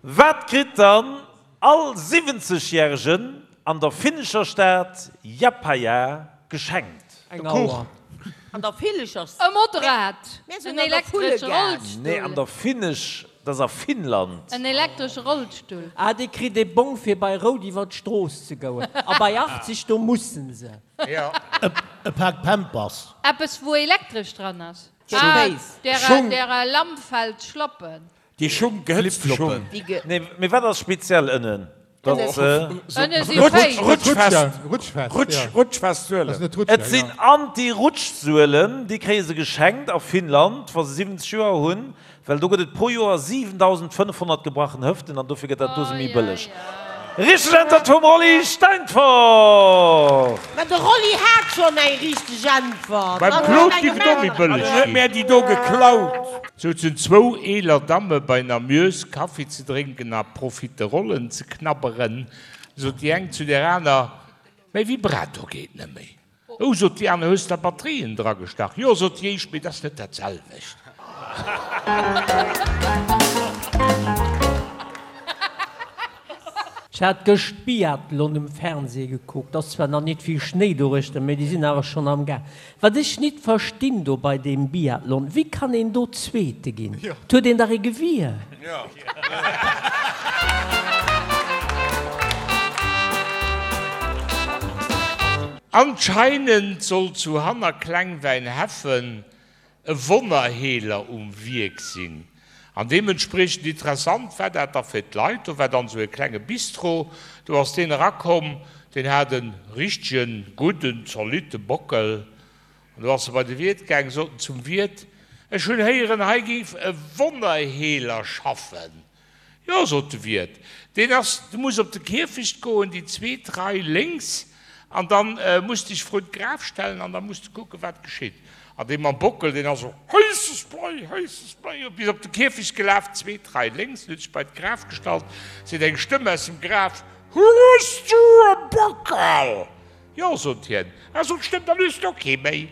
Wat kritt dann all 70 Järegen an der finnescher Stad Japaja geschenkt? Eng Auer. An der finnescher Stad? E Motorrad. En elektresche Rollstull. Nee, an der finnesch, dat ass a Finnland. En elektresche Rollstull. Ah, dee kritt ee Bong fir bei Rout iwwer d'Strooss ze goen. A bei 80, do mussen se. E Pak Pampers. Eppes wou elektresch dran ass. Ah, derer Lamp fällt Schlappen. Déi Schung, gehëtzte Schung. Nee, mee wat ass speziell ënnen? Ënne si féicht. Rutschfest, rutschfest Suelen. Et sinn Anti-Rutsch-Suelen, déi kréie se geschenkt a Finnland, wa se 70 Joer hunn, well do gëtt et pro Joer 7.500 gebrachen Hëften an dofir gëtt dat do se méi bëlleg. Richteg Äntwert vum Rolly Steinfort! Mä de Rolly hat schonn eng richteg Äntwert. Beim Claude giff et och méi bëlleg ginn. Huet mär déi do geklaut. Souzen zwou eeler Damme bei Namieus Kaffi ze drénken a Profiterollen ze knabberen, sot déi eng zu där aner, Mäi Vibrator geet nëmméi. Oh, sot déi aner, hues der Batterien dragestach? Jo, sot déi éischt, mee 't ass net dat selwecht. Ech hat gëscht Biathlon um Fernseh gekuckt. Ass zwar nach nit vill Schnéi doruechter, mee déi sinn awer schonn am Gaang. Wat ech nit verstinn do bei deem Biathlon, wéi kann een do Zweete ginn? 't huet een dach ee Gewier. Anscheinend soll zu hanner Klengwäinheffen e Wonnerheeler um Wierk sinn. An deementspriechend interessant war dat da fir d'Leit. Do war dann esou e klenge Bistro, do ass deen erakomm, deen hat e richtegen, gudden, zolitte Bockel. An do ass e bei de Wiert gaang, sot en zum Wiert, Ech hunn héieren, hei géif e Wonnerheeler schaffen. Jo, sot de Wiert, deen ass, du muss op de Kierfecht goen, déi zweet Rei lénks, an da muss dech vrun d'Graf stellen an da muss de kucken, wat geschitt. An dee mam Bockel, deen ass esou, Héisses Blei, héisses Blei, bis op de Kierfecht gelaf, zweet Rei lénks, en huet sech bei d'Graf gestallt, seet eng Stëmm aus dem Graf, Hues du e Bockel? Jo, sot hien. Ah, sot d'Stëmm, dann hues de och kee méi.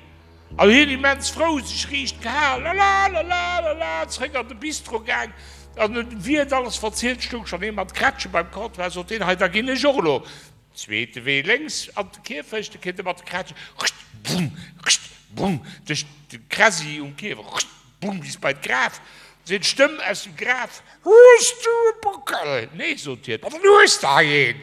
An hien immens frou, sech riicht gehal, lala, lala, lala, zréck an de Bistro gaang an huet dem Wiert alles verzielt. Stoung schonn ee mat Krätschen beim Comptoir, sot deen, Hei, da ginn ech och elo zweete Wee lénks an de Kierfecht. Da kritt e mat de Krätschen, rcht, bumm, rcht, bumm, duerch de Kräsi um Kierfecht, rcht, bumm, bis bei d'Graf. Seet d'Stëmm aus dem Graf, Hues du e Bockel? Nee, sot hien, ma dann hues de hei een!